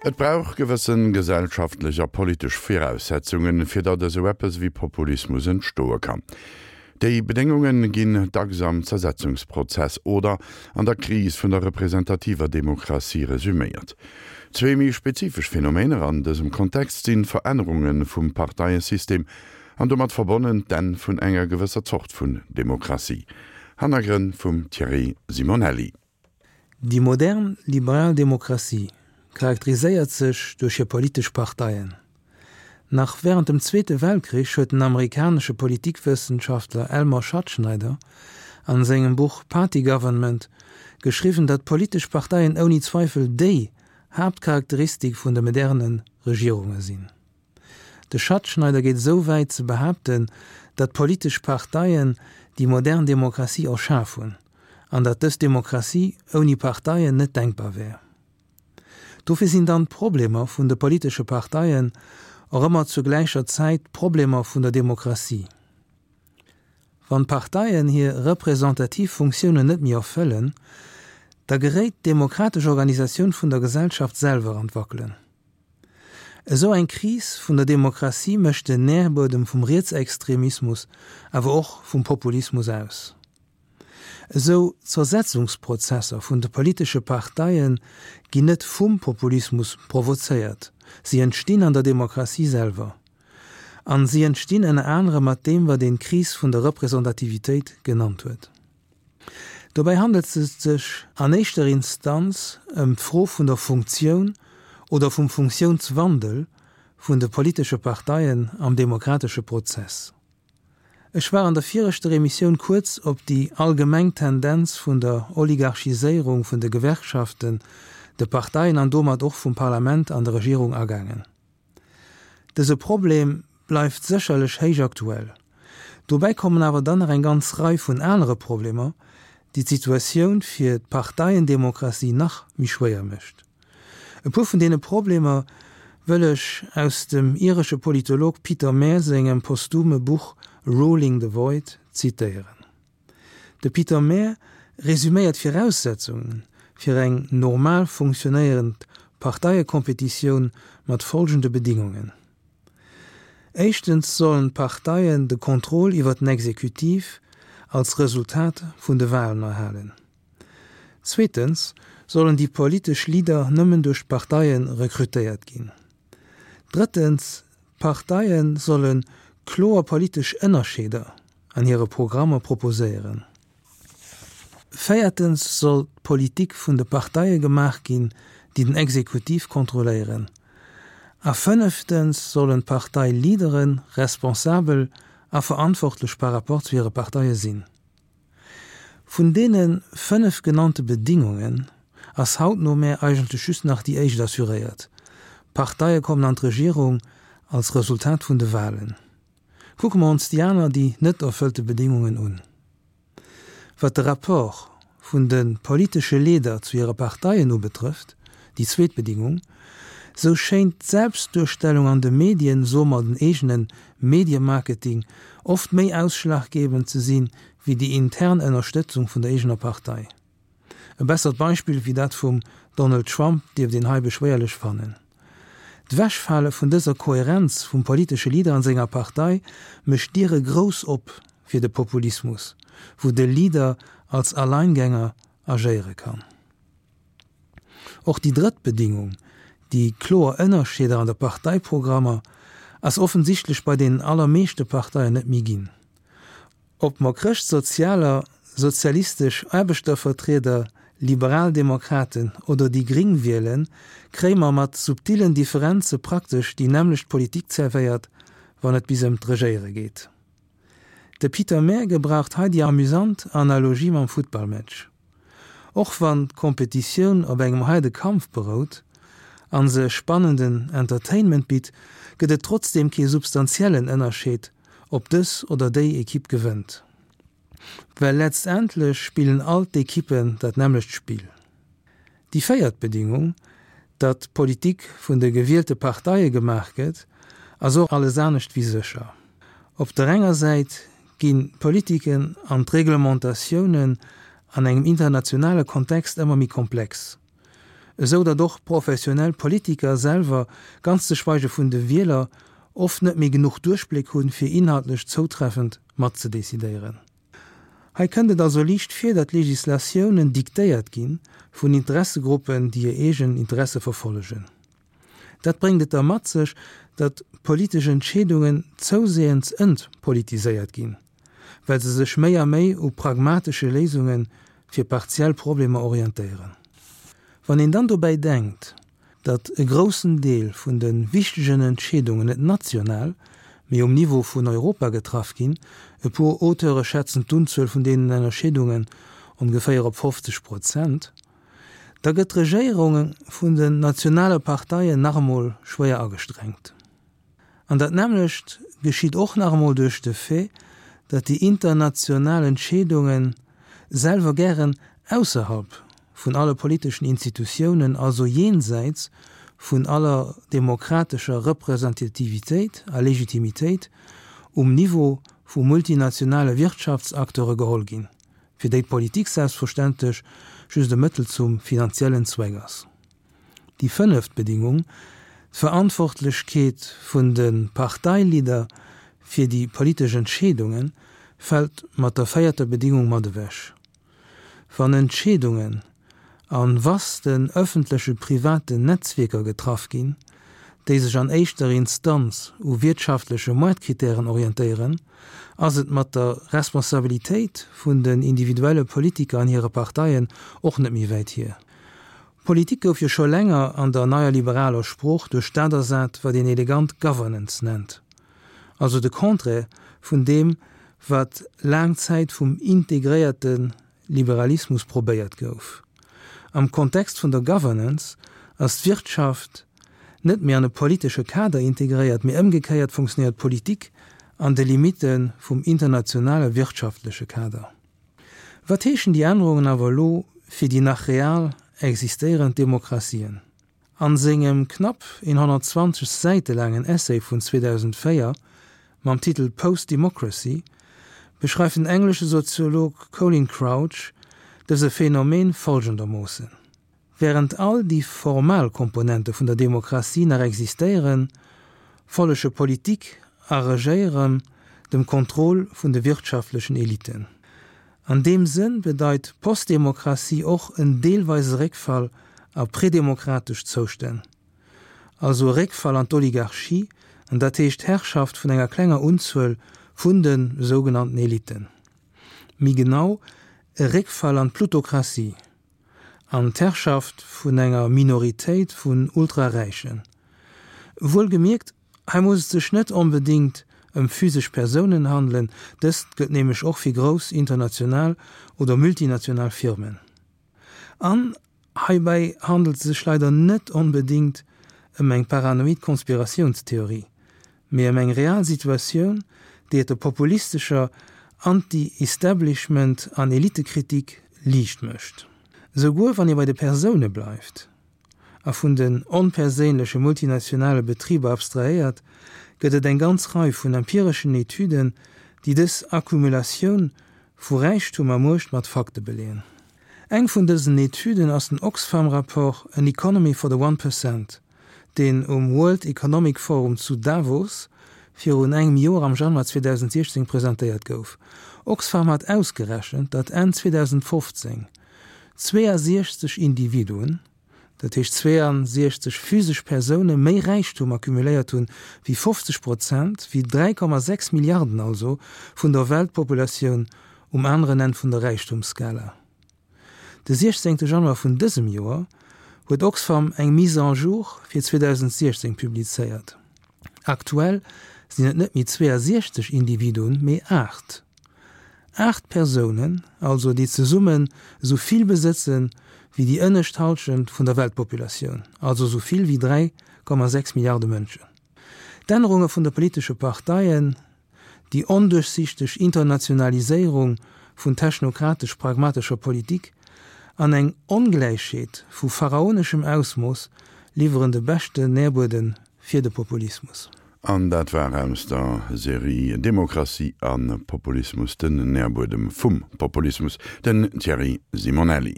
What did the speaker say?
Et brauch gewësse gesellschaftlech a politesch Viraussetzungen, fir datt esou eppes ewéi Populismus entstoe kann. Déi Bedéngunge ginn dacks am Zersetzungsprozess oder an der Kris vun der representativer Demokratie resuméiert. Zwee méi spezifesch Phänomener an dësem Kontext sinn d'Verännerunge vum Parteiesystem an domat verbonnen d'Enn vun enger gewësser Zort vun Demokratie. Hannergrënn vum Thierry Simonelli. Déi modern liberal Demokratie charakteriséiert sech duerch hir politesch Parteien. Nach wärend dem Zweete Weltkrich huet den amerikanesche Politikwëssenschaftler Elmer Schattschneider an sengem Buch Party Government geschriwwen, datt politesch Parteien ouni Zweifel déi Haaptcharakteristik vun de moderne Regierunge sinn. De Schattschneider geet esou wäit ze behaapten, datt politesch Parteien déi modern Demokratie erschaf hunn an datt dës Demokratie ouni Parteien net denkbar wär. Dofir sinn dann d'Problemer vun de politesche Parteien och ëmmer zur gläicher Zäit d'Problemer vun der Demokratie. Wann d'Parteien hir representativ Funktiounen net méi erfëllen, da geréit d'demokratesch Organisatioun vun der Gesellschaft selwer an d'Wackelen. Esou eng Kris vun der Demokratie mécht den Nährbuedem vum Rietsextremismus, awer och vum Populismus aus. Esou Zersetzungsprozesser vun de politesche Parteie ginn net vum Populismus provozéiert, si entstinn an der Demokratie selwer. An si entstinn ënner anerem mat deem, wat een d'Kris vun der Representativitéit genannt huet. Dobäi handelt et sech an éischter Instanz ëm d'Fro vun der Funktioun oder vum Funktiounswandel vun de politesche Parteien am demokratesche Prozess. Ech war an der viregter Emissioun kuerz op déi allgemeng Tendenz vun der Oligarchiséierung vun de Gewerkschaften, de Parteien an domat och vum Parlament an der Regierung agaangen. Dëse Problem bleift sécherlech héich aktuell. Dobäi kommen awer dann nach eng ganz Rei vun anere Problemer, déi d'Situatioun fir d'Parteiendemokratie nach méi schwéier mécht. E puer vun deene Problemer wëll ech aus dem iresche Politolog Peter Mair sengem posthume Buch Ruling the Void zitéieren. De Peter Mair resuméiert d'Viraussetzunge fir eng normal funktionéierend Parteiekompetitioun mat folgende Bedingungen, Éischtens sollen d'Parteien de Contrôle iwwer den Exekutiv als Resultat vun de Walen erhalen. Zweetens sollen déi politesch Leader nëmmen duerch d'Parteie rekrutéiert ginn. Drëttens, d'Parteie solle kloer politesch Ënnerscheeder an hire Programmer proposéieren. Véiertens soll d'Politik vun de Parteie gemaach ginn, déi den Exekutiv kontrolléieren. A fënneftens sollen d'Partei-Leadere responsabel a verantwortlech par rapport zu hire Parteie sinn. Vun deene 5 genannte Bedingungen ass haut no mär eigentlech just nach déi éischt assuréiert, D'Parteie kommen an d'Regierung als Resultat vun de Wahlen. Kucke mer ons déi aner, déi net erfëllte Bedingungen un. Wat de Rapport vun de politesche Leeder zu hire Parteien ubetrëfft, déi zweet Bedingung, sou schéint d'Selbstduerstellung an de Medien, soe mer den eegene Mediemarketing, oft méi ausschlaggebend ze sinn, wéi déi intern Ënnerstëtzung vun der eegener Partei. E bessert Beispill wéi dat vum Donald Trump dierft een hei beschwéierlech fannen. D'Wechfale vun dëser Kohärenz vum politesche Leader an senger Partei mécht d'Diere grouss op fir de Populismus, wou de Leader als Alleingänger agéiere kann. Och déi drëtt Bedingung, déi kloer Ënnerscheeder an de Parteiprogrammer, ass offensichtlech bei deenen allermeeschte Parteien net méi ginn. Ob mer Chrëschtsozialer, sozialistesch Aarbechtervertrieder, Liberaldemokraten oder déi Gring wielen, kréie mer mat subtillen Differenze praktesch déi nämmlecht Politik zerwéiert, wann et bis ëm d'Regéiere geet. De Peter Mair gebraucht hei déi amüsant Analogie mam Futtballmatch. Och wann d'Kompetitioun op engem haarde Kampf berout an se spannenden Entertainment bitt, gëtt et trotzdeem kee substantiellen Ënnerscheed, ob dës oder déi Ekipp gewënnt. Well letztendlech spillen all d'Ekippen dat nämmlecht Spill. Déi véiert Bedingung, datt Politik vun de gewielte Parteie gemaach gëtt, ass och alles anescht wéi sécher. Op der enger Säit ginn d'Politiken an d'Reglementatiounen an engem internationale Kontext ëmmer méi komplex. Esou datt och professionell Politiker selwer, ganz ze schweige vun de Wieler, oft net méi genuch Duerchbléck hunn, fir inhaltlech zoutreffend matzedecidéieren. Hei kënnt et also liicht vir, datt Legislatiounen diktéiert gi vun Interessegruppen, déi hir eegen Interesse verfollegen. Dat bréngt et da mat sech, datt politesch Entscheedungen zouseeënds entpolitiséiert ginn, well se sech méi a méi u pragmatesche Léisunge fir partiell Problemer orientéieren. Wann een dann dobäi denkt, datt e groussen Deel vun de wichtegen Entscheedungen net national, mee um Niveau vun Europa getraff ginn, e puer Auteure schätzen d'Unzuel vun deenen Ennerscheedungen ongeféier op 50 Prozent, da gëtt d'Regéierung vun den nationale Parteien nach emol schwéier agestrengt. An dat nämmlecht geschitt och nach emol duerch de Fait, datt déi international Entscheedunge selwer gären ausserhalb vun alle politeschen Institutiounen, also jenseits vun aller demokratescher Representativitéit a Legitimitéit, um Niveau vu multinationale Wirtschaftsacteure geholl ginn, fir déi d'Politik selbstverständlech just e Mëttel zum finanziellen Zweck ass. Déi fënneft Bedingung, d'Verantwortlechkeet vun de Parteileader fir déi politesch Entscheedungen, fält mat der véierter Bedingung mat ewech. Wann Entscheedungen a vasten ëffentleche privaten Netzwierker getraff ginn, déi sech an éischter Instanz u wiertschaftleche Moartkritären orientéieren, ass et mat der Responsabilitéit vun den individuelle Politiker an hire Parteien och net méi wäit hier. Politik gouf jo scho länger an der neier liberaler Sprooch duerch dat ersat, wat een elegant Governance nennt, also de Contraire vun deem, wat laang Zäit vum integréierte Liberalismus probéiert gouf. Am Kontext vun der Governance ass d'Wirtschaft net méi an e politesche Kader integréiert, mee ëmgekéiert funktionéiert d'Politik an de Limitte vum internationale wirtschaftleche Kader. Wat heeschen déi Ännerungen awer elo fir déi nach real existéierend Demokratien? An sengem knapp 120 Säite laangen Essay vun 2004 mam Titel Post-Democracy beschreift den englesche Soziolog Colin Crouch dëse Phänomen folgendermoossen, Wärend all déi formal Komponente vun der Demokratie nach existéieren, follege Politik a Regéieren dem Contrôle vun de wirtschaftlechen Eliten. An deem Sënn bedeit Postdemokratie och en deelweise Réckfall a predemokratesch Zoustänn, also e Réckfall an d'Oligarchie, an dat heescht d'Herrschaft vun enger klenger Unzuel vun de sougenannten Eliten. Méi genau, e Réckfall an d'Plutokratie. An d'Herrschaft vun enger Minoritéit vun Ultraräichen. Wuelgemierkt, hei muss et sech net onbedéngt ëm physesch Persounen handelen, dëst gëllt nämlech och fir grouss international oder multinational Firmen. An heibäi handelt et sech leider net onbedéngt ëm eng paranoid Konspiratiounstheorie, mee ëm eng real Situatioun, déi et der populistescher Anti-Establishment an Elitekritik liicht mécht. Esouguer wann ee bei de Persoune bleift a vun den onperséinleche multinationale Betriber abstrahéiert, gëtt et eng ganz Rei vun empireschen Etüden, déi dës Accumulatioun vu Räichtum a Muecht mat Fakte beleeën. Eng vun dësen Etüden ass den Oxfam-Rapport An Economy for the One Percent, deen um World Economic Forum zu Davos virun engem Joer am Januar 2016 presentéiert gouf. Oxfam hat ausgerechent, datt Enn 2015 62 Individuen, dat heescht 62 physesch Persoune méi Räichtum accumuléiert hunn, wéi 50 Prozent, wéi 3,6 Milliarden also, vun der Weltpopulatioun um aneren Enn vun der Räichtumsskala. De 16 Januar vun dësem Joer huet Oxfam eng Mise en jour fir 2016 publizéiert. Aktuell sinn et net méi 62 Individuen, mee 8. 8 Persounen also, déi zesummen esou vill besëtzen, wéi déi ënnescht Hallschent vun der Weltpopulatioun, also esou vill wéi 3,6 Milliarde Mënschen. D'Ännerunge vun de politesche Parteien Déi onduerchsichteg Internationaliséierung vun technokratesch-pragmatescher Politik an eng Ongläichheet vu pharaoneschem Ausmooss liwweren de beschten Nährbuedem fir de Populismus. An dat war aus der Serie Demokratie a Populismus, den Nährbuedem vum Populismus, den Thierry Simonelli.